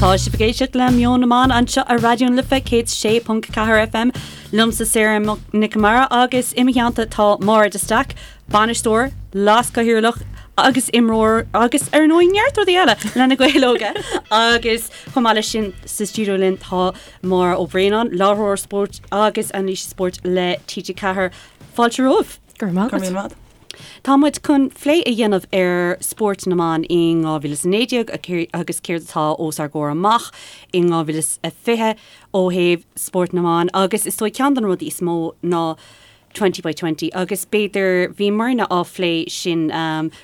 Tá sibh ag éisteacht le Meon na mBan anseo ar Raidió na Life 106.4 FM. Liomsa Sarah Nic Con Mara agus i mo theannta tá Máire de Staic, bainisteoir, leaschathaoirleach agus imreoir agus ar ndóigh neart rudaí eile le Na Gaeil Óga agus chomh maith leis sin sa stiúideo linn tá Máire Ó Braonáin, láithreoir spóirt agus anailísí spóirt le TG4. Fáilte romhaibh. Go raibh maith agat. Tá muid chun plé a dhéanamh ar spórt na mban in 2019 agus céard atá os ár gcomhair amach in 2020 ó thaobh spórt na mban agus is dóigh ceann de na rudaí is mó ná Twenty by Twenty agus b'fhéidir bhíomarna á phlé sin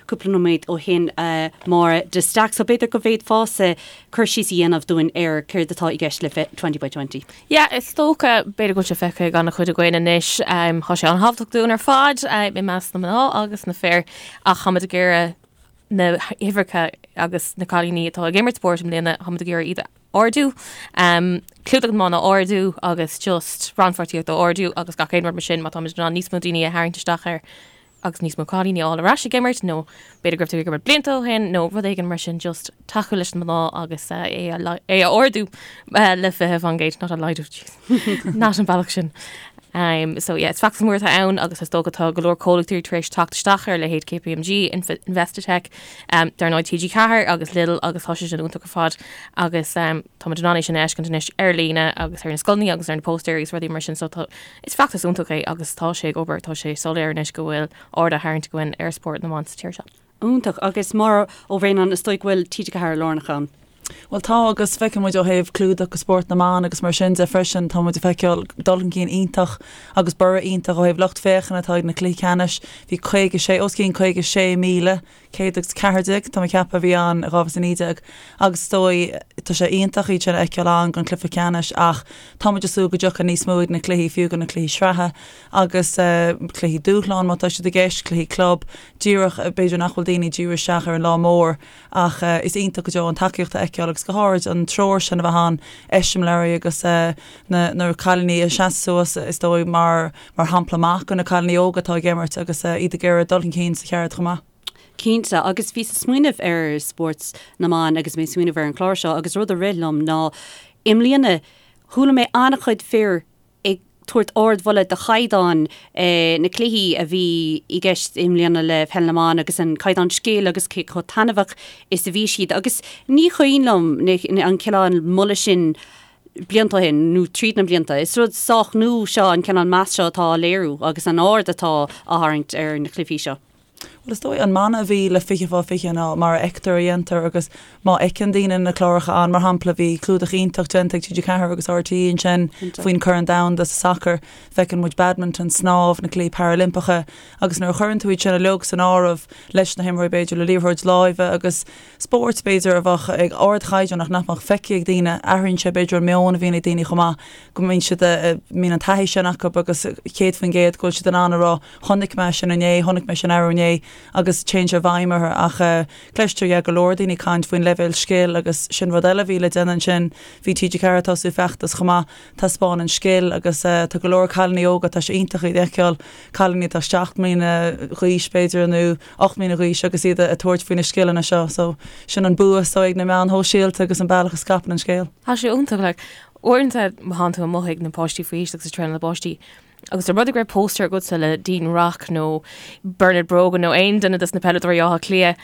cúpla nóiméad ó shin a Mháire de Staic so b'fhéidir go bhféadfása cur síos a dhéanamh dúinn ar céard atá i gceist le Twenty by Twenty. Yeah, is dócha, b'fhéidir go bhfuil sé feicthe ag an-chuid againn anois, tá sé an-thábhachtach dúinn ar fad, i measc na mná agus na fir, ach táimid ag iarraidh na huimhreacha agus na cailíní atá ag imirt spóirt i mbliana, táimid ag iarraidh iad a ardú, clúdach na mban a ardú agus just rannpháirtíocht a ardú agus gach aon rud mar sin, má táimid in ann níos mó daoine a tharraingt isteach air agus níos mó cailíní a fháil ar ais ag imirt nó b'fhéidir go raibh tú ag imirt blianta ó shin nó rud éigin mar sin just tacú leis na mná agus é a é a ardú le 20%, not a laghdú, jeez, not an bealach sin. Um, so yeah, is feachtas mór atá ann agus is dócha tá go leor comhlachtaí tar éis teacht isteach ar leithéid KPMG, Investec, um, dar ndóigh TG4 agus Lidl agus tá sé sin iontach ar fad agus um, táimid in ann é sin a fheiscint anois ar líne agus ar na scoileanna agus ar na póstaerí agus rudaí mar sin so tá Is feachtas iontach é agus tá sé ag obair, tá sé soiléir anois go bhfuil aird á tharraingt againn ar spórt na mban sa tír seo. Iontach. Agus Máire Ó Bhraonáin, is dóigh go bhfuil TG4 lárnach ann? Bhuel tá agus feiceann muid ó thaobh clúdach go spórt na mban agus mar sin de freisin, tá muid ag feiceáil dul chun cinn iontach agus borradh iontach ó thaobh lucht féachana atá ag na cluichí ceannais. Bhí 56, os cionn 56,000 114, tá mé ag ceapadh, a bhí ann i 2019 agus is dóigh, tá sé iontach iad sin a fheiceáil ann don chluiche ceannais ach tá muid ag súil go dtiocfaidh níos mó ag na cluichí, fiú go na cluichí sraithe agus cluichí dúshláin má tá siad i gceist, cluichí club, díreach, b'fhéidir nach bhfuil daoine ag díriú isteach ar an lá mór ach is iontach go deo an tacaíocht a fheiceáil agus go háirid an treoir sin a bheith ann, eiseamláirí agus na na cailíní a sheasamh suas is dóigh mar mar shampla maith do na cailíní óga atá ag imirt agus iad ag iarraidh dul chun cinn sa cheird chomh maith. Cinnte, agus bhíos ag smaoineamh ar spórt na mban agus mé ag smaoineamh ar an chlár seo agus rud a rith liom ná i mbliana chuala mé an-chuid fir ag tabhairt ardmholadh do chaighdeán na cluichí a bhí i gceist i mbliana le peil na mban agus an caighdeán scil agus cé chomh taitneamhach is a bhí siad agus ní cuimhin liom an cineál moladh sin blianta ó shin, nó tríd na blianta. Is rud sách nua seo an cineál meas seo atá á léiriú agus an aird atá á tharraingt ar na cluichí seo. Bhuel, is dóigh an mana a bhí le 20 fá 20 ná mar a fheictear a dhéantar agus má fheiceann daoine na cláracha ann, mar shampla, bhí clúdach iontach déanta ag TG4 agus RTÉ ansin faoin Corn Domhanda sa sacar, feiceann muid badminton, snámh, na Cluichí Parailimpeacha agus nuair a chuireann tú iad sin uilig san áireamh leis na himreoirí b'fhéidir le liathróid láimhe agus spóirt, b'fhéidir, a bheadh ag ardchaighdeán ach nach mbeadh feicthe ag daoine. Athraíonn sé, b'fhéidir, an meon a bhíonn ag daoine chomh maith, go mbíonn siad, mbíonn an taithí sin acu agus 100% go bhfuil siad in ann a rá 'chonaic mé sin inné, chonaic mé sin arú inné' agus téann sé i bhfeidhm orthu. Ach cloistear, yeah, go leor daoine ag caint faoin leibhéal scil agus sin rud eile a bhí le déanamh ansin. Bhí TG4 ag tosú feachtas chomh maith, taispeáin an scil agus tá go leor cailíní óga, tá sé iontach iad a fheiceáil, cailíní atá 7 mbliana d'aois, b'fhéidir, nó 8 mbliana d'aois agus iad ag tabhairt faoi na scileanna seo. So sin an bua is dóigh ag na meáin shóisialta agus an bealach a scaipeann an scéal. Tá sé iontach like uaireanta má thánn tú amuigh ag na páistí faoi aois agus ag traenáil na bpáistí agus dá mba rud é go raibh póstaer agatsa le Dean Rock nó Bernard Brogan nó aon duine dos na peileadóirí Átha Cliath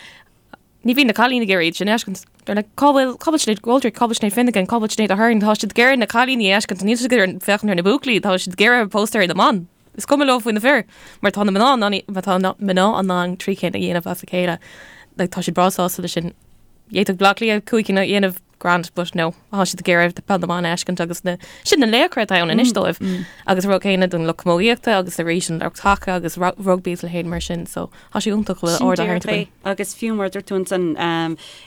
ní bhíonn na cailíní ag iarraidh iad sin a fheiscint. They're like, cá bhfuil cá bhfuil Sinéad McGoldrick, cá bhfuil Sinéad Finnegan, cá bhfuil Sinéad Aherne, tá siad ag iarraidh na cailíní a fheiscint, níl siad ag iarraidh féachaint ar na buachaillí, tá siad ag iarraidh póstaeir na mban. Is cuma leo faoi na fir, mar tá na mná in ann, mar tá na mná in ann trí cinn a dhéanamh as a chéile. Like, tá siad breá sásta leis sin. D'fhéadfadh Bleá Cliath cúig cinn a dhéanamh grand, but no, tá siad ag iarraidh peil na mban a fheiscint agus na, sin na laochra atá ann anois dóibh. Agus an rud céanna don lucht camógaíochta agus arís an lucht haca agus rugbaí is a leithéid mar sin, so tá sé iontach go bhfuil aird á tharraingt againn. Agus fiú mar a dúirt tú ansan,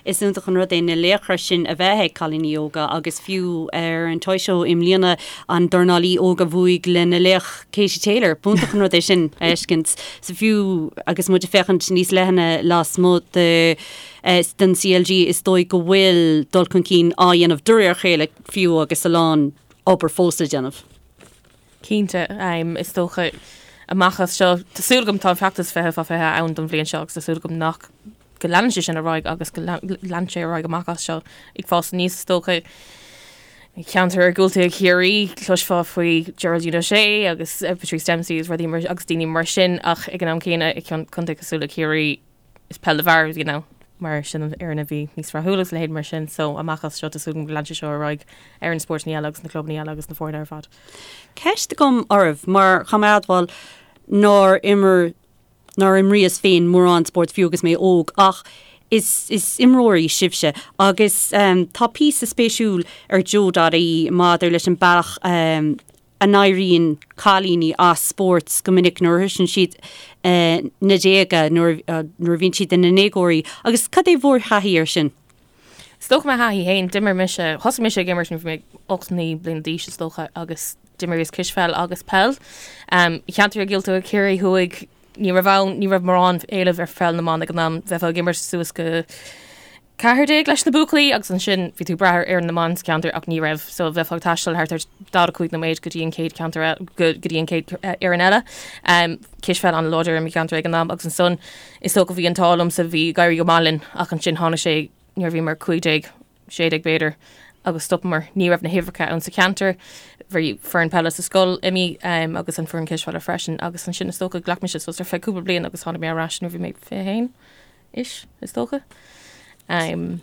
Is iontach an rud é na laochra sin a bheith ag cailíní óga agus fiú ar an Toy Show i mbliana an dornálaí óg a bhuaigh lena laoch Katie Taylor. B'iontach an rud é sin a fheiscint. So fiú agus muid ag féachaint níos leithne lasmuigh de den CLG is dóigh go bhfuil dul chun cinn á dhéanamh de réir a chéile fiú agus a lán obair fós le déanamh. Cinnte, is dócha amach as seo, tá súil agam, tá an feachtas 20 fá 20 ann don bhliain seo agus tá súil agam nach. go leanann sé sin ar aghaidh agus go leanann sé ar aghaidh amach as seo ag fás aníos is dócha. I gceantar iargúlta Chiarraí, cloisfeá faoi Geraldine O'Shea agus Patrice Dempsey agus rudaí mar agus daoine mar sin ach ag an am céanna i contae cosúil le Ciarraí is peil na bhfear a bhí ann mar sin an fhoireann a bhí níos rathúla agus a leithéid mar sin so amach as seo tá súil agam go leanann sé seo ar aghaidh ar na spórtanna eile agus na clubanna eile agus na foirne ar fad. Ceist agam oraibh mar caithfidh mé a admháil nár imir nár imríos féin mórán spóirt fiú agus mé óg ach is is imreoirí sibhse agus tá píosa spéisiúil ar Joe.ie maidir leis an bealach a n-éiríonn cailíní as spórt go minic nuair a shroiseann siad na déaga nuair nuair a bhíonn siad ina ndéagóirí agus cad é bhur thaithí air sin? Is dócha mo thaithí féin, d'imir mise, thosaigh mise ag imirt nuair a bhí mé 8, 9 bliana d'aois is dócha agus d'imríos cispheil agus peil. I gceantar iargúlta Chiarraí Thuaidh ní raibh ann, ní raibh mórán éileamh ar pheil na mban ag an am, bheifeá ag imirt suas go 14 leis na buachaillí agus ansin bhí tú ag brath ar fhoireann na mban sa cheantar ach ní raibh, so bheifeá ag taisteal thart ar 45 nóiméad go dtí an chéad cheantar go dtí an chéad fhoireann eile. Cispheil an-láidir i mo cheantar ag an am agus ansan is dócha bhí an t-ádh liomsa bhí ag éirí go maith linn ach ansin tháinig sé nuair a bhíomar 15, 16 b'fhéidir agus stopamar. Ní raibh na huimhreacha ann sa cheantar. Bhí foireann peile sa scoil imithe agus an foireann cispheile freisin agus ansin is dócha ghlac mise sos ar feadh cúpla bliain agus tháinig mé ar ais nuair a bhí mé 21 ish is dócha. Um.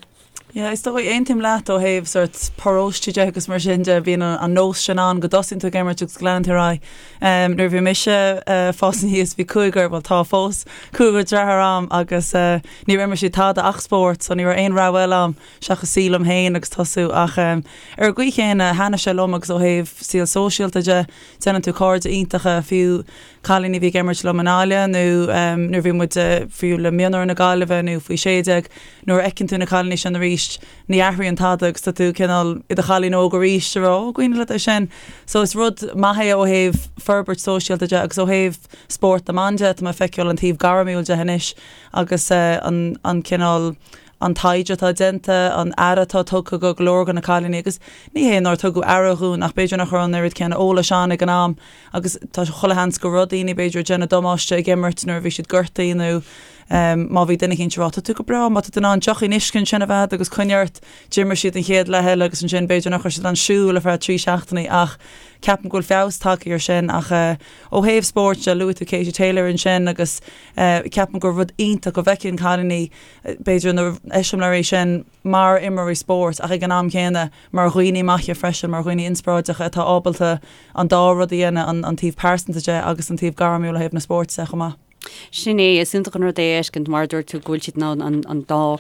Yeah, is dóigh, aontaím leat ó thaobh sort paróiste de agus mar sin de, bíonn an nós sin ann go dtosaíonn tú ag imirt agus go leanann tú ar aghaidh. Um, nuair a bhí mise uh, fás aníos bhí cúigear, bhuel tá fós, cúigear deartháir a'm agus uh, níor imir siad tada ach spórt, so ní raibh aon rogha eile a'm seachas suí liom féin agus tosú ach um, ar an gcaoi chéanna thaitnigh sé liom agus ó thaobh saol sóisialta de, déanann tú cairde iontacha fiú cailíní a bhí ag imirt liom i nGaillimh nó nuair a bhí muid fiú le mionúir na Gaillimhe nó faoi 16, nuair a fheiceann tú na cailíní sin arís, ní athraíonn tada agus tá tú cineál i do chailín óg arís ag rá, ó, cuimhin leat é sin. So is rud maith é ó thaobh forbairt sóisialta de agus ó thaobh spórt na mban de, tá mé ag feiceáil an taobh gairmiúil de anois agus an an cineál an taighde atá déanta, an aire atá tugtha go go leor de na cailíní agus ní hé nár tugadh aire dhúinn ach b'fhéidir nach raibh an oiread céanna eolais ann ag an am agus tá chuile sheans go raibh daoine b'fhéidir ag déanamh damáiste ag imirt nuair a bhí siad gortaithe nó má bhí duine eicínt ag rá tá tú go breá má tá tú in ann deochín uisce ansin a bheith agus coinnigh ort d'imir siad an chéad leath eile agus ansin b'fhéidir nach raibh siad in ann siúl ar feadh 3 seachtainí ach ceapaim go bhfuil feabhas tagtha ar sin ach ó thaobh spóirt de luaigh tú Katie Taylor ansin agus ceapaim gur rud iontach go bhfeiceann cailíní b'fhéidir na eiseamláirí sin mar imreoirí spóirt ach ag an am chéanna mar dhaoine maithe freisin, mar dhaoine inspioráideacha atá ábalta an dá rud a dhéanamh, an taobh pearsanta de agus an taobh gairmiúil ó thaobh na spóirt de chomh maith. Sin é, is iontach an rud é a fheiscint, mar a dúirt tú, go bhfuil siad in ann an dá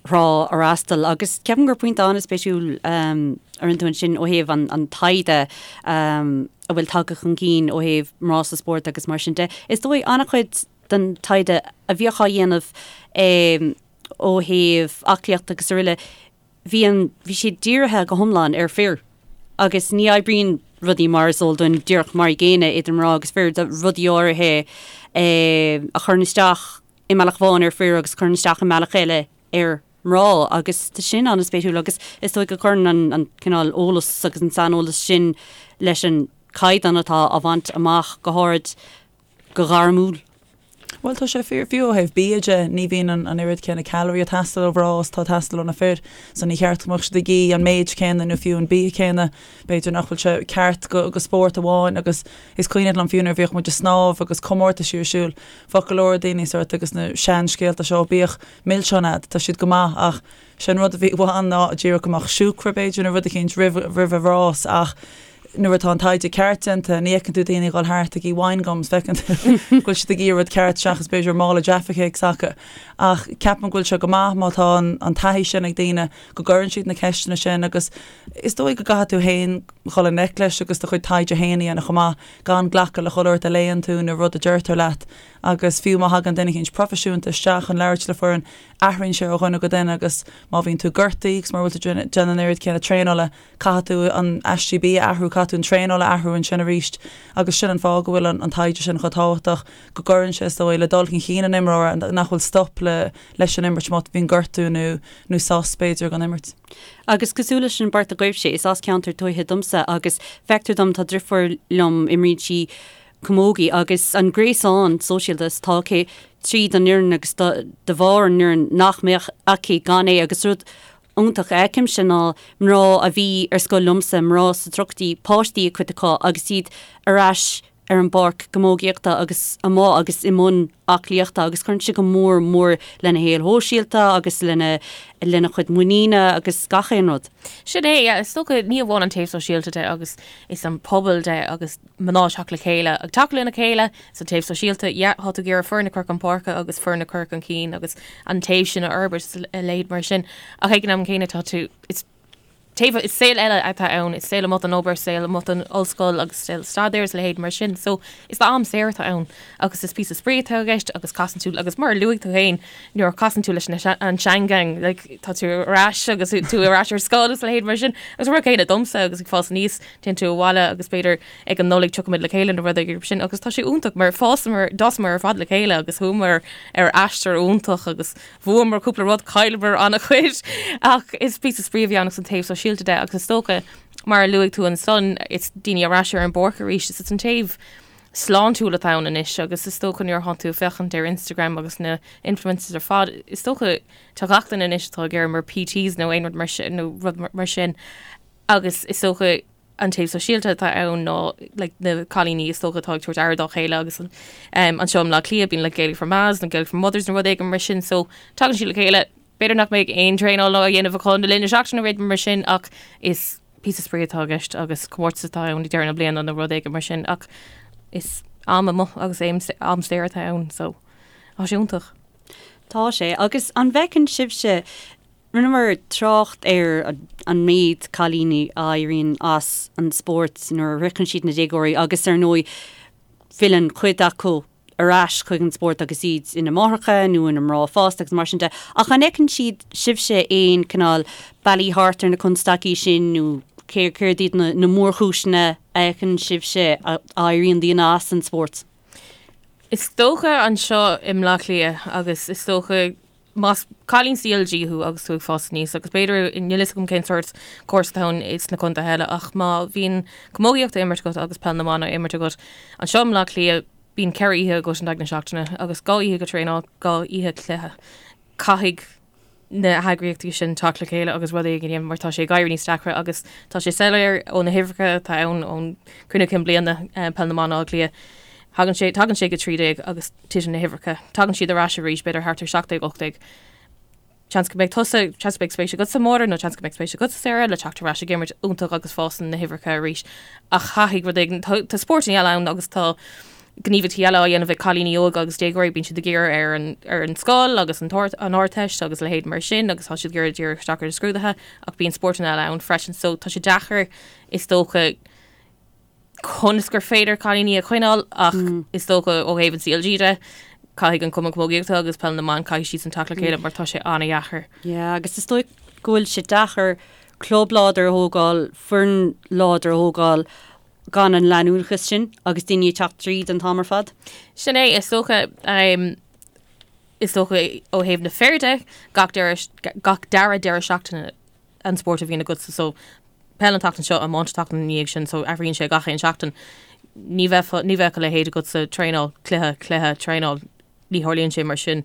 thrá a fhreastal. Agus ceapaim gur pointe an-spéisiúil a rinne tú ansin ó thaobh an taighde a bhfuil tagtha chun cinn ó thaobh mná sa spórt agus mar sin de. Is dóigh an-chuid den taighde a bhíodh á dhéanamh ó thaobh aclaíochta agus araile, bhí an, bhí siad dírithe go hiomlán ar fir agus ní oibríonn rudaí mar is eol dúinn díreach mar an gcéanna idir mná agus fir, rudaí áirithe a chuireann isteach i mbealach amháin ar fir agus a chuireann isteach i mbealach eile ar mná agus tá sin an-spéisiúil agus is dóigh go gcuireann an, an cineál eolas agus an saineolas sin leis an caighdeán atá á bhaint amach go háirid go gairmiúil. Bhuel, tá sé fíor, fiú ó thaobh bia de, ní bhíonn an oiread céanna calorie ag teastáil ó mhná is atá ag teastáil ó na fir, so ní cheart go mbeadh siad ag ithe an méid céanna nó fiú an bia céanna. B'fhéidir nach bhfuil sé ceart go go spórt amháin agus is cuimhin liom fiú nuair a bhíodh muid ag snámh agus comórtaisí ar siúl, bheadh go leor daoine sort agus na seanscéalta seo, bíodh milseáin a'd, tá siad go maith ach sé an rud a bhí ann ná díreach go mbeadh siúcra b'fhéidir nó rud eicínt roimh roimh an rás ach nuair atá an taighde ceart déanta, ní fheiceann tú daoine ag dul thart ag ithe wine gums, feiceann tú go bhfuil siad ag ithe rud ceart seachas b'fhéidir mála Jaffa Cakes acu. Ach ceapaim go bhfuil sé go maith má tá an taithí sin ag daoine go gcuireann siad na ceisteanna sin agus is dóigh go gcaithfidh tú féin dhul i ngleic leis agus do chuid taighde féin a dhéanamh chomh maith, gan glacadh le chuile shórt a léann tú nó rud a deirtear leat. Agus fiú má thagann duine eicínt proifisiúnta isteach chun labhairt le foireann, athraíonn sé ó dhuine go duine agus má bhíonn tú gortaithe agus mura bhfuil tú déanamh an oiread céanna traenála, Caithfidh tú an aistí bia a athrú, caithfidh tú an traenáil a athrú ansin arís agus sin an fáth go bhfuil an taighde sin chomh tábhachtach, go gcuireann sé, is dóigh, le dul chun cinn an imreora, nach bhfuil stop le leis an imirt má bhíonn gortú nó nó sos, b'fhéidir, don imirt. Agus cosúil leis an bport agaibhse, is as ceantar tuaithe domsa agus feictear dom, tá driofúr liom, imríonn sí camogie agus an gréasán sóisialta is atá aici. tríd an fhoireann agus de bharr an fhoireann nach mbeadh aici gan é agus rud iontach a fheicimse ná mná a bhí ar scoil liomsa, mná sna tríochaidí, páistí ag cuid acu agus iad ar ais ar an bpáirc camógaíochta agus amuigh agus i mbun aclaíochta agus cuireann sé go mór mór lena shaol shóisialta agus lena lena chuid muiníne agus gach aon rud. Sin é, yeah, is dócha ní amháin an taobh sóisialta de agus is an pobal de agus mná teacht le chéile ag tacú lena chéile, is an taobh sóisialta, yeah, tá tú ag iarraidh foireann a chur chun páirce agus foireann a chur chun cinn agus an taobh sin a fhorbairt is a leithéid mar sin. Ach ag an am céanna tá tú, is taobh, is saol eile atá ann, is saol amuigh den obair, saol amuigh den ollscoil agus saol staidéir is a leithéid mar sin. So is am saor atá ann agus is píosa spraoi atá i gceist agus casann tú, agus mar a luaigh tú féin, nuair a chasann tú leis na, an seangang, like, tá tú ar ais agus tú ar ais ar scoil agus a leithéid mar sin. Agus an rud céanna domsa agus ag fás aníos, téann tú abhaile agus b'fhéidir ag an Nollaig tiocfaimid le chéile nó rud éigin mar sin agus tá sé iontach mar fásamar, d'fhásamar ar fad le chéile agus chuamar ar aistear iontach agus bhuamar cúpla rud, chailleamar an-chuid ach is píosa spraoi a bhí ann agus an taobh sóisialta de agus is dócha mar a luaigh tú ansan is daoine ar ais ar an bpáirc arís is an taobh sláintiúil atá ann anois agus is dócha nuair atá tú ag féachaint ar Instagram agus na influencers ar fad is dócha tá gach duine anois atá ag éirí mar PTs nó aon rud mar sin nó rud mar sin agus is dócha an taobh sóisialta atá ann ná like, na cailíní is dócha atá ag tabhairt aire dá chéile agus an, um, anseo i mBleá Cliath bíonn like, Gaelic for Mas nó Gaelic for Mothers nó rud éigin mar sin so tagann siad le chéile b'fhéidir nach mbeidh aon traenáil á dhéanamh acu le linn na seachtaine nó rud mar sin ach is píosa spraoi atá i gceist agus comórtas atá ann ag deireadh na bliana nó rud éigin mar sin ach is am amuigh agus am, am saor atá ann so tá sé iontach. Tá sé agus an bhfeiceann sibhse Rinneamar trácht ar an méid cailíní a éiríonn as an spórt nuair a shroicheann siad na déagóirí agus ar ndóigh filleann cuid acu ar ais chuig an spórt agus iad ina máithreacha nó ina mná fásta agus mar sin de. Ach an fheiceann siad sibhse aon cineál bealaí thart ar na constaicí sin nó céard iad na mórchúiseanna a fheiceann sibhse a éiríonn daoine as an spórt? Is dócha anseo i mBleá Cliath agus is dócha Más cailín CLG thú agus tú ag fás aníos, agus b'fhéidir, níl fhios agam cén sórt córas atá ann sna contaetha eile, ach má bhíonn camógaíocht á imirt agat agus peil na mban á imirt agat, anseo i mBleá Cliath, bíonn 4 oíche agat in aghaidh na seachtaine agus 2 oíche go traenáil, 2 oíche cluiche. Caithfidh na heagraíochtaí sin teacht le chéile agus rud éigin a dhéanamh mar tá sé ag éirí níos deacra agus tá sé soiléir ó na huimhreacha atá ann ón Cruinniú Cinn Bliana Peil na mBan Átha Cliath. Thagann sé, tagann sé go 13 agus titeann na huimhreacha. Tagann siad ar ais arís, b'fhéidir thart ar 17, 18. Seans go mbeidh tusa, seans go mbeidh spéis agatsa, Máire, nó seans go mbeidh spéis agatsa, Sarah, le teacht ar ais ag imirt iontach agus fásann na huimhreacha arís. Ach caithfidh rud éigin, tá, tá spórtanna eile ann agus tá gníomhaíochtaí eile á dhéanamh ag cailíní óga agus déagóirí, bíonn siad ag iarraidh ar an, ar an scoil agus an t-ard, an Ardteist agus a leithéid mar sin agus tá siad ag iarraidh díriú isteach ar na scrúduithe ach bíonn spórtanna eile ann freisin. So tá sé deacair, is dócha, conas gur féidir cailíní a choinneáil ach is dócha ó thaobh an CLG de, caithfidh an Cumann Camógaíochta agus Peil na mBan, caithfidh siadsan teacht le chéile mar tá sé an-dheacair. Yeah, agus is dóigh go bhfuil sé deacair club láidir a thógáil, foireann láidir a thógáil gan an leanúnachas sin agus daoine ag teacht tríd an t-am ar fad. Sin é, is dócha, is dócha ó thaobh na fir de, gach deireadh, gach dara deireadh seachtaine an spórt a bhíonn agatsa so peil an tseachtain seo, iomáint an tseachtain ina dhiaidh sin so athraíonn sé gach aon seachtain. Ní bheadh ní bheadh a leithéid agatsa traenáil, cluiche, cluiche, traenáil, ní tharlaíonn sé mar sin.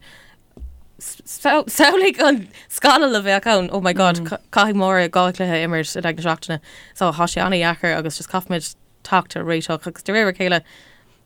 Samhlaigh an scannal a bheadh ann, oh my god, caithfidh Máire dhá chluiche a imirt in aghaidh na seachtaine. So tá sé an-dheacair agus just caithfimid teacht ar réiteach agus de réir a chéile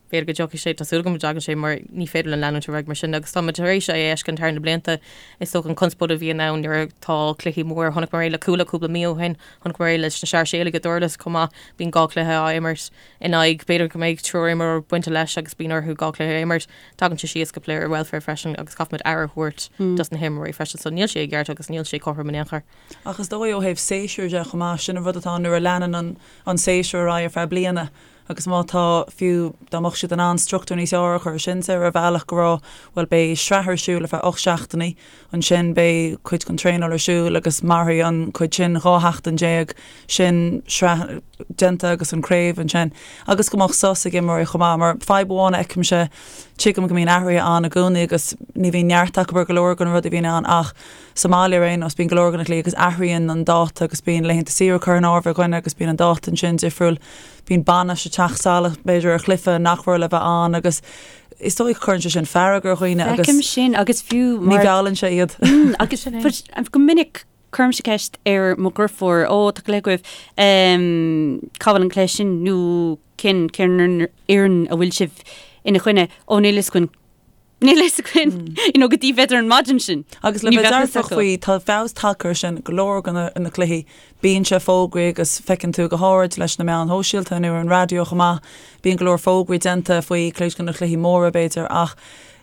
B'fhéidir go dtiocfaidh sé, tá súil agam go dtagann sé mar ní féidir linn leanúint ar aghaidh mar sin agus táimid tar éis é a fheiscint thar na blianta. Is dócha an conspóid a bhíonn ann nuair atá cluichí mór, chonaiceamar é le Cuala cúpla mí ó shin, chonaiceamar é leis na Sáirséalaigh i nDurlas chomh maith, bíonn 2 chluiche á imirt in aghaidh, b'fhéidir go mbeidh triúr imreoir bainte leis agus bíonn orthu 2 chluiche a imirt. Tagann sé síos go player welfare freisin agus caithfimid aire a thabhairt dos na himreoirí freisin so níl sé i gceart agus níl sé cothrom in aon chor. Ach is dóigh ó thaobh séasúir de chomh maith, sin an rud atá ann nuair a leanann an séasúr ar aghaidh ar feadh bliana, Agus má tá, fiú dá mbeadh siad in ann struchtúr níos fearr a chur sin ar bhealach go raibh, bhuel beidh sraith ar siúl ar feadh 8 seachtainí, ansin beidh cuid den traenáil ar siúl agus mairfidh an cuid sin 12 sheachtain, sin sraith déanta agus an craobh ansin. Agus go mbeadh sos ag imreoirí chomh maith, mar fadhb amháin a fheicimse, tuigim go mbíonn athruithe ann i gcónaí agus ní bhíonn neart acu ar go leor de na rudaí a bhíonn ann ach sa mbaile ar aon nós bíonn go leor de na cluichí agus athraíonn an dáta agus bíonn laethanta saoire curtha in áirithe ag dhuine agus bíonn an dáta ansin difriúil. Bíonn bainis ag teacht salach, b'fhéidir, ar chluiche nach raibh le bheith ann agus. Is dóigh go cuireann sé sin fearg ar dhaoine agus. Feicim sin agus fiú mar. Ní mheallann sé iad. Agus go minic cuirimse ceist ar mo dheirfiúr, ó tá cluiche agaibh, cá bhfuil an cluiche sin nó cén cén fhoireann a bhfuil sibh ina choinne, ó níl fhios againn. Níl fhios againn, you know, go dtí b'fhéidir an maidin sin. Agus le bheith dearfach faoi, tá feabhas tagtha air sin go leor de na cluichí. Bíonn sé fógraithe agus feiceann tú go háirid leis na meáin shóisialta nó ar an raidió chomh maith, bíonn go leor fógraí déanta faoi cuid de na cluichí móra b'fhéidir ach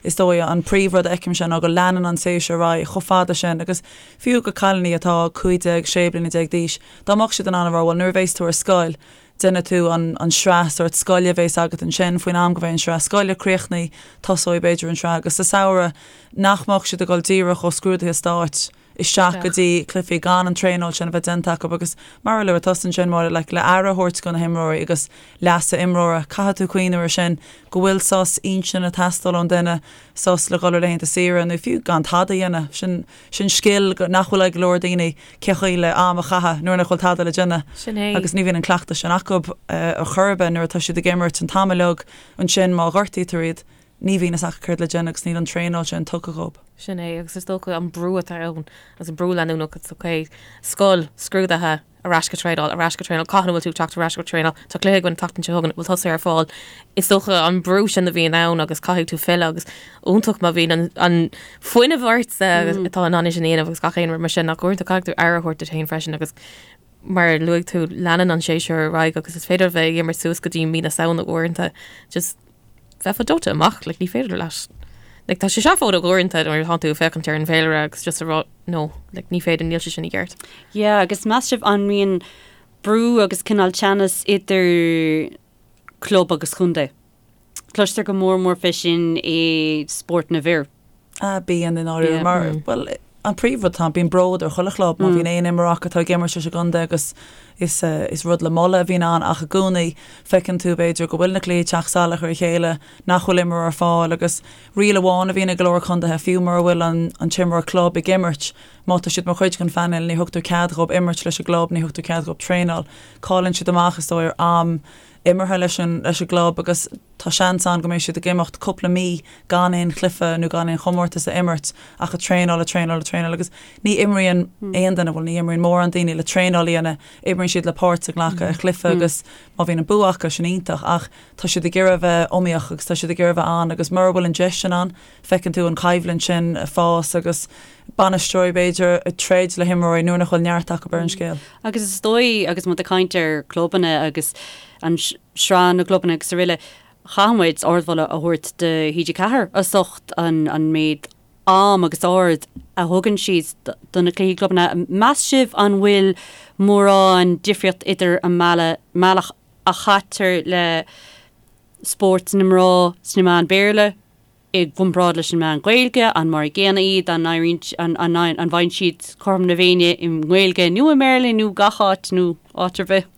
is dóigh an príomhrud a fheicimse ná go leanann an séasúr ar aghaidh chomh fada sin agus fiú go cailíní atá 15, 16 bliana d'aois, dá mbeadh siad in ann a rá bhuel nuair a bheas tú ar scoil, déanfaidh tú an sraith sórt scoile a bhéas agat ansin, faoin am go mbeidh an sraith scoile críochnaithe, tosóidh b'fhéidir an sraith agus sa samhradh, nach mbeadh siad ag dul díreach ó scrúduithe stáit isteach go dtí cluichí gan an traenáil sin a bheith déanta acu agus mar a luaigh tusa ansin Máire, like, le aire a thabhairt do na himreoirí agus leasa imreora, caithfidh tú cuimhneamh ar sin, go bhfuil sos intinne ag teastáil ón duine, sos le dhul ar laethanta saoire nó fiú gan tada a dhéanamh, sin. Sin scil nach bhfuil ag go leor daoine, cén chaoi le am a chaitheamh nuair nach bhfuil tada le déanamh. Sin é. Agus ní bhíonn an cleachtadh sin acu ar chor ar bith nuair atá siad ag imirt an t-am uilig. Ansin má ghortaítear iad, ní bhíonn fhios acu céard le déanamh agus níl an traenáil sin tugtha dhóibh. Sin é, agus is dócha an brú atá ann, agus an brú leanúnach, it's ok, scoil, scrúduithe, ar ais go traenáil, ar ais go traenáil, cathain a bhfuil tú ag teacht ar ais go traenáil, tá cluiche againn an tseachtain seo chugainn, bhfuil tusa ar fáil. Is dócha an brú sin a bhíonn ann agus caithfidh tú filleadh agus iontach má bhíonn an, an fuinneamh ort atá in ann é sin a dhéanamh agus gach aon rud mar sin ach uaireanta caithfidh tú aire a thabhairt duit féin freisin agus mar a luaigh tú leanann an séasúr ar aghaidh agus is féidir a bheith ag imirt suas go dtí mí na Samhna uaireanta just bheifeá dóite amach, like, ní féidir leat. Like, tá sé seafóideach uaireanta nuair atá tú ag féachaint ar an bhféilire agus just a rá, no, like, ní féidir, níl sé sin i gceart. Yeah, agus meas sibh an mbíonn brú agus cineál teannas idir club agus contae? Cloistear go mór mór fé sin i spórt na bhfir. Ah, bíonn i ndáiríre, mar, bhuel, an príomhrud atá ann, bíonn bród ar chuile chlub má bhíonn aon imreoir acu atá ag imirt leis an gcontae agus is, is rud le moladh a bhíonn ann ach i gcónaí feiceann tú b'fhéidir go bhfuil na cluichí ag teacht salach ar a chéile, nach bhfuil imreoir ar fáil agus riail amháin a bhíonn i go leor contaetha, fiú mura bhfuil an, an t-imreoir club ag imirt, má tá siad mar chuid den phainéal ní thugtar cead dhóibh imirt leis an gclub, ní thugtar cead dhóibh traenáil. Cailleann siad amach is dóigh ar am imeartha leis an, leis an gclub agus tá seans ann go mbeidh siad ag imeacht cúpla mí gan aon chluiche nó gan aon chomórtas a imirt ach ag traenáil, ag traenáil, ag traenáil agus ní imríonn aon duine, bhuel ní imríonn mórán daoine le traenáil a dhéanamh, imríonn siad le páirt a ghlacadh i gcluiche agus má bhíonn an bua acu sin iontach ach tá siad ag iarraidh a bheith iomaíoch agus tá siad ag iarraidh a bheith ann agus mura bhfuil an deis sin ann feiceann tú an choimhlint sin ag fás agus bainisteoirí b'fhéidir ag troid le himreoirí nuair nach bhfuil neart acu ar an scéal. Agus is dóigh, agus muid ag caint ar clubanna agus an sraith na gclubanna agus araile, chaithfidh muid ardmholadh a thabhairt do TG4 as ucht an an méid am agus aird a thugann siad do na cluichí clubanna. Meas sibh an bhfuil mórán difríocht idir an mbealach a chaitear le spórt na mná sna meáin Béarla i gcomparáid leis an meán Gaeilge, an mar a gcéanna iad, an éiríonn, an, an, an bhfaigheann siad cothrom na Féinne i nGaeilge nó i mBéarla nó gach áit nó áit ar bith?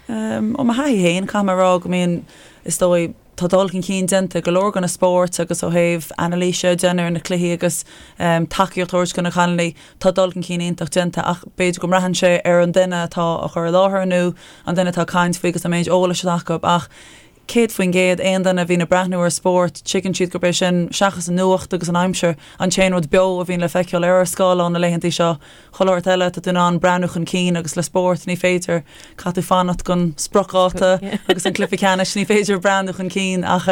Ó mo thaithí féin, caithfidh mé a rá go mbíonn, is dóigh, tá dul chun cinn déanta i go leor de na spóirt agus ó thaobh anailíse a dhéanamh ar na cluichí agus tacaíocht a thabhairt do na cailíní, tá dul chun cinn iontach déanta ach b'fhéidir go mbraitheann sé ar an duine atá á chur i láthair nó an duine atá ag caint faoi agus an méid eolais atá acu ach 100%, aon duine a bhíonn ag breathnú ar spórt, tuigeann siad gurb é sin, seachas an nuacht agus an aimsir, an t-aon rud beo a bhíonn le feiceáil ar ár scáileán na laethantaí seo. Chuile shórt eile, tá tú in ann breathnú chun cinn agus le spórt, ní féidir, caithfidh tú fanacht don spriocdháta agus an cluiche ceannais, ní féidir breathnú chun cinn ach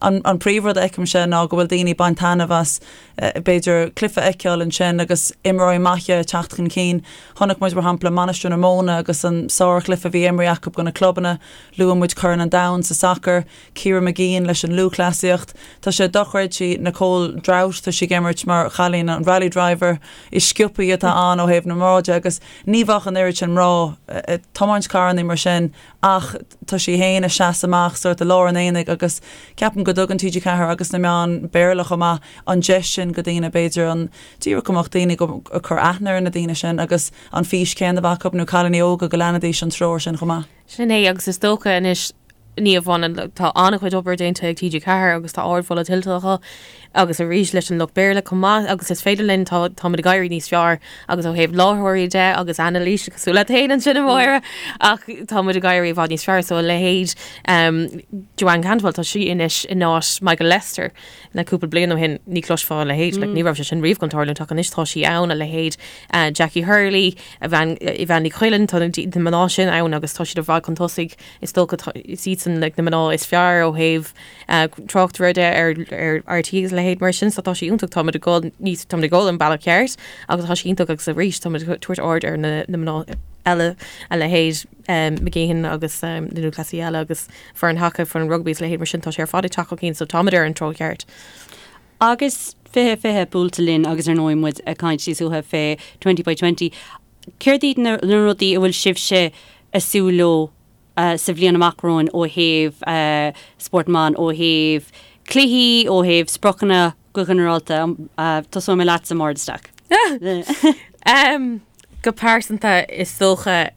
an príomhrud a fheicimse ná go bhfuil daoine ag baint taitneamh as b'fhéidir cluiche a fheiceáil ansin agus imreoirí maithe ag teacht chun cinn. Chonaic muid, mar shampla, Mainistir na Móna agus an sárchluiche a bhí imrithe acu do na clubanna. Luaigh muid Corn an Domhain sa sacar, Ciara Mageean leis an lúthchleasaíocht. Tá sé dochreidte, Nicole Drought, tá sí ag imirt mar chailín an rally driver is sciobthaí atá ann ó thaobh na mná de agus ní bheadh an oiread sin mná ag tiomáint carrannaí mar sin ach tá sí féin ag seasamh amach sórt i lár an aonaigh agus ceapaim go dtugann TG4 agus na meáin Béarla chomh maith an deis sin go daoine b'fhéidir an díreach go mbeadh daoine ag cur aithne ar na daoine sin agus an fís céanna a bheith acu nó cailíní óga go leanfaidís an treoir sin chomh maith. Sin é agus is dócha anois. Ní amháin tá an-chuid obair déanta ag TG4 agus tá ardmholadh tuillte acu agus arís leis an lucht Béarla chomh maith agus is féidir linn tá táimid ag éirí níos fearr agus ó thaobh láithreoirí de agus anailís cosúil leat féin ansin a Mháire ach táimid ag éirí i bhfad níos fearr so a leithéid um, Joanne Cantwell tá sí anois in áit Michael Lester le cúpla bliain ó shin ní chloisfeá a leithéid like, ní raibh sé sin riamh chun tarlúint ach anois tá sí ann a leithéid uh, Jackie Hurley Aoibheann Aoibheann Ní Chuilinn tá na mná sin ann agus tá siad i bhfad chun tosaigh Is dócha is iadsan like, na mná is fearr ó thaobh uh, tráchtaire de ar, ar RTÉ agus a leithéid mar sin, so tá sé iontach táimid ag dul níos táimid ag dul an bealach ceart agus tá sé iontach agus arís táimid ag tabhairt aird ar na, na mná eile a leithéid um, McGeehan agus um, na lúthchleasaithe eile agus foireann haca, foireann rugbaí is a leithéid mar sin tá sé ar fad ag teacht chun cinn so táimid ar an treo ceart. Agus 20 20 buailte linn agus ar ndóigh muid ag caint níos luaithe fé 20 by 20. Céard iad na rudaí a bhfuil sibhse ag súil leo sa bhliain amach romhainn ó thaobh spórt na mban, ó thaobh cluichí, ó thaobh spriocanna go ginearálta? Tosóidh mé leatsa, Máire de Staic. Go pearsanta, is dócha,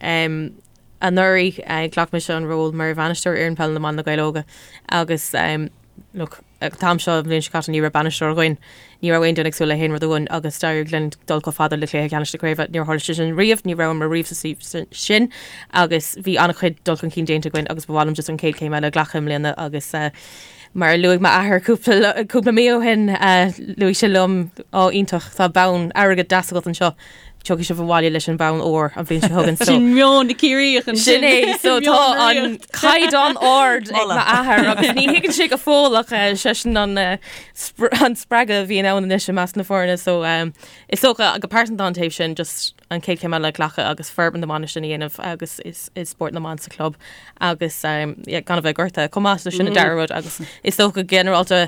anuraidh ghlac mise an ról mar bhainisteoir fhoireann peile na mban Na Gaeil Óga agus look, An t-am seo an bhliain seo caite ní raibh bainisteoir againn, ní raibh aon duine ag súil le haon rud uainn agus d'éirigh linn dul chomh fada le cluiche ceannais na craoibhe. Níor tharla sé sin riamh, ní rabhamar riamh sa suíomh sin agus bhí an-chuid dul chun cinn déanta againn agus ba mhaith liom just an chéad chéim eile a ghlacadh i mbliana agus mar a luaigh m'athair cúpla cúpla mí ó shin, luaigh sé liom, Á iontach, tá bonn airgid deas agat anseo. Tiocfaidh sibh abhaile leis an bonn óir an bhliain seo chugainn. Sin meon na Ciarraíoch ansin. Sin é, so tá an caighdeán ard ag m'athair agus ní thuigeann sé go fóill ach seisean an an spreagadh a bhíonn ann anois i measc na foirne so is dócha go pearsanta an taobh sin just an chéad chéim eile a ghlacadh agus forbairt na mban sin a dhéanamh agus is is spórt na mban sa chlub agus yeah, gan a bheith gortaithe chomh maith so sin an dara rud agus is dócha go ginearálta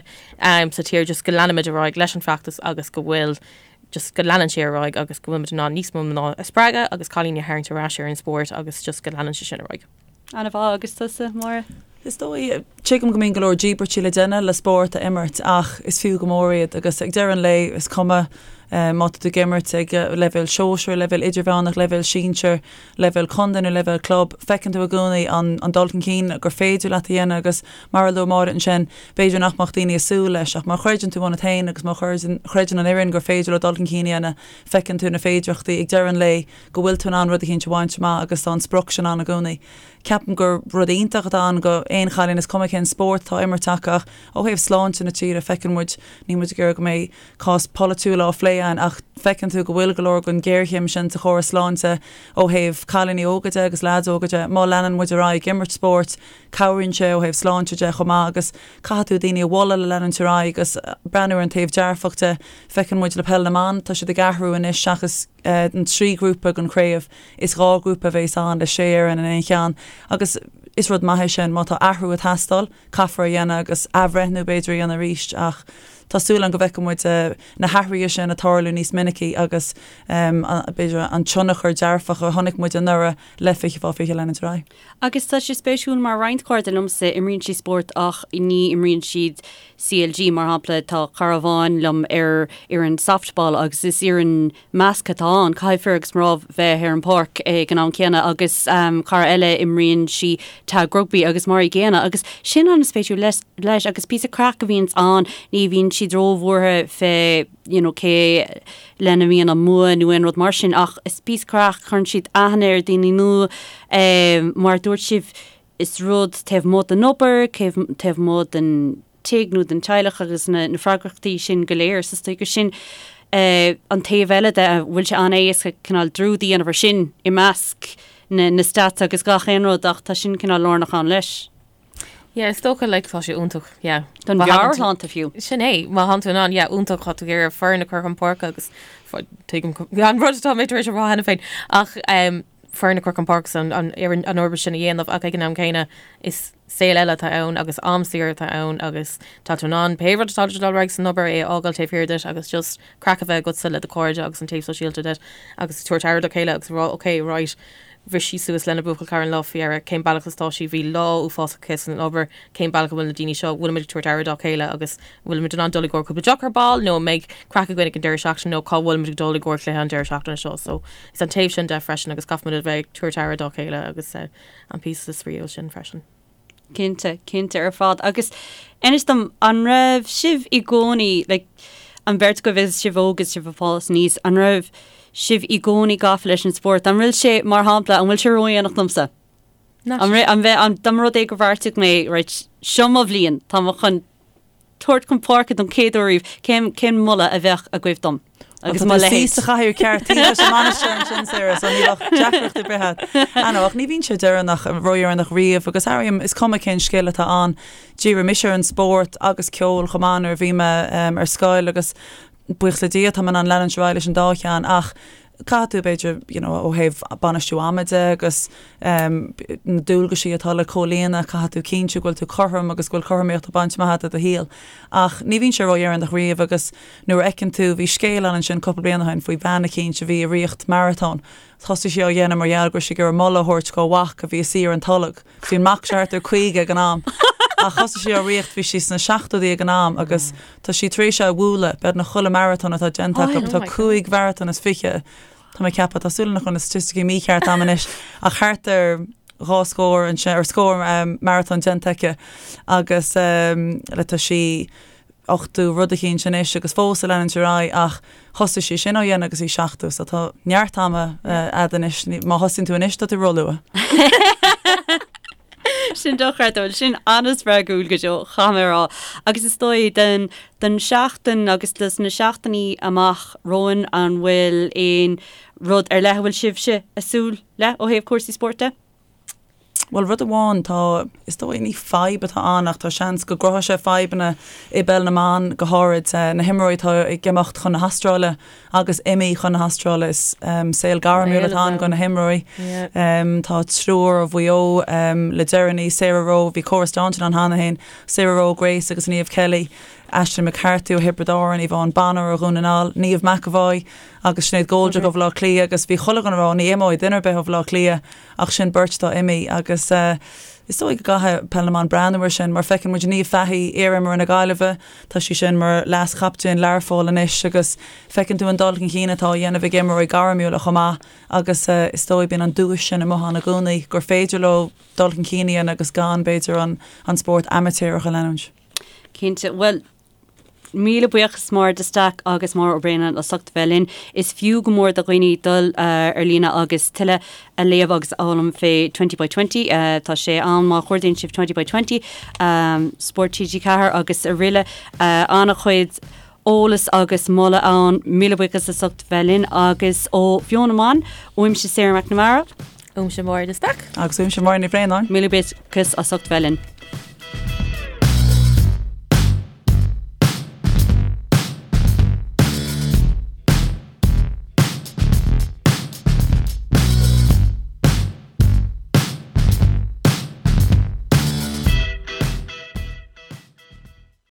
sa tír just go leanfaimid ar aghaidh leis an feachtas agus go bhfuil just go leanann sé ar aghaidh agus go bhfuilimid in ann níos mó mná a spreagadh agus cailíní a tharraingt ar ais ar an spórt agus just go leanann sé sin ar aghaidh. An-mhaith, agus tusa, Máire? Is dóigh, tuigim go mbíonn go leor díbairtí le déanamh le spórt a imirt ach is fiú go mór iad agus ag deireadh an lae is cuma má tá tú ag imirt ag leibhéal sóisir, leibhéal idirmheánach, leibhéal sinsir, leibhéal contae nó leibhéal club, feiceann tú i gcónaí an dul chun cinn gur féidir leat a dhéanamh agus mar a luaigh Máire ansin, b'fhéidir nach mbeadh daoine ag súil leis ach má chreideann tú ionat féin agus má chreideann an fhoireann gur féidir leo dul chun cinn a dhéanamh, feiceann tú na féidearthachtaí ag deireadh an lae go bhfuil tú in ann rud eicínt a bhaint amach agus tá an sprioc sin ann i gcónaí. Ceapaim gur rud iontach atá ann go aon chailín, is cuma cén spórt atá á imirt acu ach ó thaobh sláinte na tíre, feiceann muid, níl muid ag iarraidh go mbeidh cás polaitiúil á phlé againn ach feiceann tú go bhfuil go leor den ghéarchéim sin sa chóras sláinte ó thaobh cailíní óga de agus leaids óga de. Má leanann muid ar aghaidh ag imirt spóirt, cabhraíonn sé ó thaobh sláinte de chomh maith agus caithfidh tú daoine a mholadh le leanúint ar aghaidh agus breathnú ar an taobh dearfach de. Feiceann muid le Peil na mBan, tá siad ag athrú anois seachas an 3 ghrúpa den chraobh, is 2 ghrúpa a bheas ann le 6 fhoireann in aon cheann agus is rud maith é sin. Má tá athrú ag teastáil, caithfear é a dhéanamh agus athbhreithniú b'fhéidir a dhéanamh arís ach tá súil agam go bhfeicfidh muid na hathruithe sin ag tarlú níos minicí agus b'fhéidir an tionchar dearfach a chonaic muid anuraidh le 20 fá 20 leanúint ar aghaidh. Agus tá sé spéisiúil mar roinnt cairde liomsa imríonn siad spórt ach ní imríonn siad CLG mar shampla tá cara amháin liom ar fhoireann softball agus is fhoireann measctha atá ann, caithfidh fir agus mná bheith ar an bpáirc ag an am céanna agus cara eile imríonn sí tag rugbaí agus mar an gcéanna agus sin an-spéisiúil leis agus píosa craic a bhíonns ann, ní bhíonn siad róbhuartha fé you know cé lena mbíonn an bua nó aon rud mar sin ach is píosa craic, cuireann siad aithne ar daoine nua mar a dúirt sibh is rud taobh amuigh den obair, taobh amuigh den tigh nó den teaghlach agus na freagrachtaí sin go léir. So is dóigh gur sin an taobh eile de, a bhfuil sé an-éasca cineál dearúd a dhéanamh ar sin i measc na na stats agus gach aon rud ach tá sin cineál lárnach ann leis. Yeah, is dócha like tá sé iontach, yeah. Don mheabhairshláinte fiú. Sin é, má thánn tú in ann, yeah, iontach, tá tú ag iarraidh foireann a chur chun páirce agus tuigim an rud atá mé tar éis a rá cheana féin ach um, foireann a chur chun páirce an, an, an, an obair sin a dhéanamh ach ag an am céanna is saol eile atá ann agus am saor atá ann agus tá tú in ann pé rud atá ag dul ar aghaidh san obair é a fhágáil taobh thiar duit agus just craic a bheith agatsa le do chairde agus an taobh sóisialta de agus tabhairt aire do chéile agus a rá ok right bhris sí suas lena buachaill cara an lá faoi dheireadh cén bealach is atá sí bhí lá uafásach aici san obair cén bealach a bhfuil na daoine seo bhfuilimid ag tabhairt aire dá chéile agus bhfuilimid in ann dul i gcomhair cúpla deoch ar ball nó an mbeidh craic againn ag an deireadh seachtaine nó cá bhfuilimid ag dul i gcomhair cluiche an deireadh seachtaine seo so is an taobh sin de freisin agus caithfimid a bheith ag tabhairt aire dá chéile agus uh, an píosa spraíúil sin freisin. Cinnte, cinnte ar fad. Agus inis dom, an raibh sibh i gcónaí, like, an bheirt agaibh is sibh óg is sibh ag fás aníos, an raibh sibh i gcónaí gafa leis an spórt? An bhfuil sé, mar shampla, an bhfuil sé ródhéanach domsa? An raibh, an bheith, an, dá mba rud é gur bheartaigh mé, right, seo mo bhliain, tá mé chun tabhairt chun páirce don chéad uair riamh, cén, cén moladh a bheadh agaibh dom? Agus mo leithéid. Sa chathaoir ceart taobh leis an mbainisteoir ansin, Sarah, so ní bheadh deacracht ar bith agat. Ah no, ach ní bhíonn sé deireanach, ródheireanach riamh agus airím, is cuma cén scil atá ann, dhírigh mise ar an spórt agus ceol chomh maith nuair a bhí mé ar scoil agus buíochas le Dia tá mé in ann leanúint ar aghaidh leis an dá cheann ach caithfidh tú b'fhéidir you know ó thaobh bainistiú ama de agus na dualgaisí atá le comhlíonadh, caithfidh tú cinntiú go bhfuil tú cothrom agus go bhfuil cothromaíocht á baint amach agat i do shaol. Ach ní bhíonn sé ródheireanach riamh agus nuair a fheiceann tú, bhí scéal ann ansin cúpla bliain ó shin faoi bhean eicínt a bhí ag ritheacht maratón. Thosaigh sí á dhéanamh mar gheall go raibh sí ag iarraidh moladh a thabhairt dhá mhac a bhí ina suí ar an tolg. Bhí an mac seo thart ar 50 ag an am. Ach thosaigh sí á ritheacht, bhí sí sna seachtóidí ag an am agus tá sí tar éis é a bhualadh, beagnach chuile maratón atá déanta acu, tá 25 mharatón, tá mé ag ceapadh, tá súil agam nach bhfuil na staitisticí mícheart agam anois, ach thart ar dhá scór ansin, ar scór maratón déanta aici agus le tá sí 80 rud eicínt anois agus fós ag leanúint ar aghaidh ach thosaigh sí sin á dhéanamh agus í 70 so tá neart ama a'd anois, má thosaíonn tú anois tá tú róluath. Sin dochreidte, bhuel sin an-spreagúil go deo, caithfidh mé a rá. Agus is dóigh don don seachtain agus dos na seachtainí amach romhainn an bhfuil aon rud ar leith a bhfuil sibhse ag súil le ó thaobh cúrsaí spóirt de? Bhuel, rud amháin, tá, is dóigh, ní fadhb atá ann ach tá seans go gcruthóidh sé fadhbanna i bpeil na mban, go háirid na himreoirí atá ag imeacht chun na hAstráile agus imithe chun na hAstráile. Is saol gairmiúil atá ann do na himreoirí. Tá triúr ó Mhaigh Eo le deireanaí, Sarah Rowe, bhí Cora Staunton ann cheana féin, Sarah Rowe, Grace agus Niamh Kelly, Aisling McCarthy ó Thiobraid Árann, Yvonne Bonner ó Dhún na nGall, Niamh McEvoy agus Sinéad Goldrick ó Bhaile Átha Cliath agus bhí chuile dhuine ag rá ní imeoidh duine ar bith ó Bhaile Átha Cliath Ach sin beirt atá imithe agus is dóigh go gcaithfidh Peil na mBan breathnú air sin mar feiceann muid Niamh Fahey, iar-imreoir na Gaillimhe, tá sí sin mar leas-chaptaen Learpholl anois agus feiceann tú an dul chun cinn atá á dhéanamh ag imreoirí gairmiúla chomh maith agus is dóigh bíonn an duais sin amuigh ann i gcónaí gur féidir leo dul chun cinn a dhéanamh agus gan b'fhéidir an spórt amaitéarach a leanúint. Cinnte. Bhuel, Míle buíochas Máire de Staic agus Máire Ó Braonáin as ucht a bheith linn. Is fiú go mór do dhaoine dul ar líne agus tuilleadh a léamh agus a fhoghlaim fé Twenty by Twenty. Tá sé ann má chuardaíonn sibh Twenty by Twenty, Spórt TG4 agus araile. An-chuid eolas agus moladh ann. Míle buíochas as ucht a bheith linn agus ó Bheo na mBan, uaimse Sarah McNamara. Uaimse Máire de Staic. Agus uaimse Máire Ní Bhraonáin. Míle buíochas as ucht a bheith linn.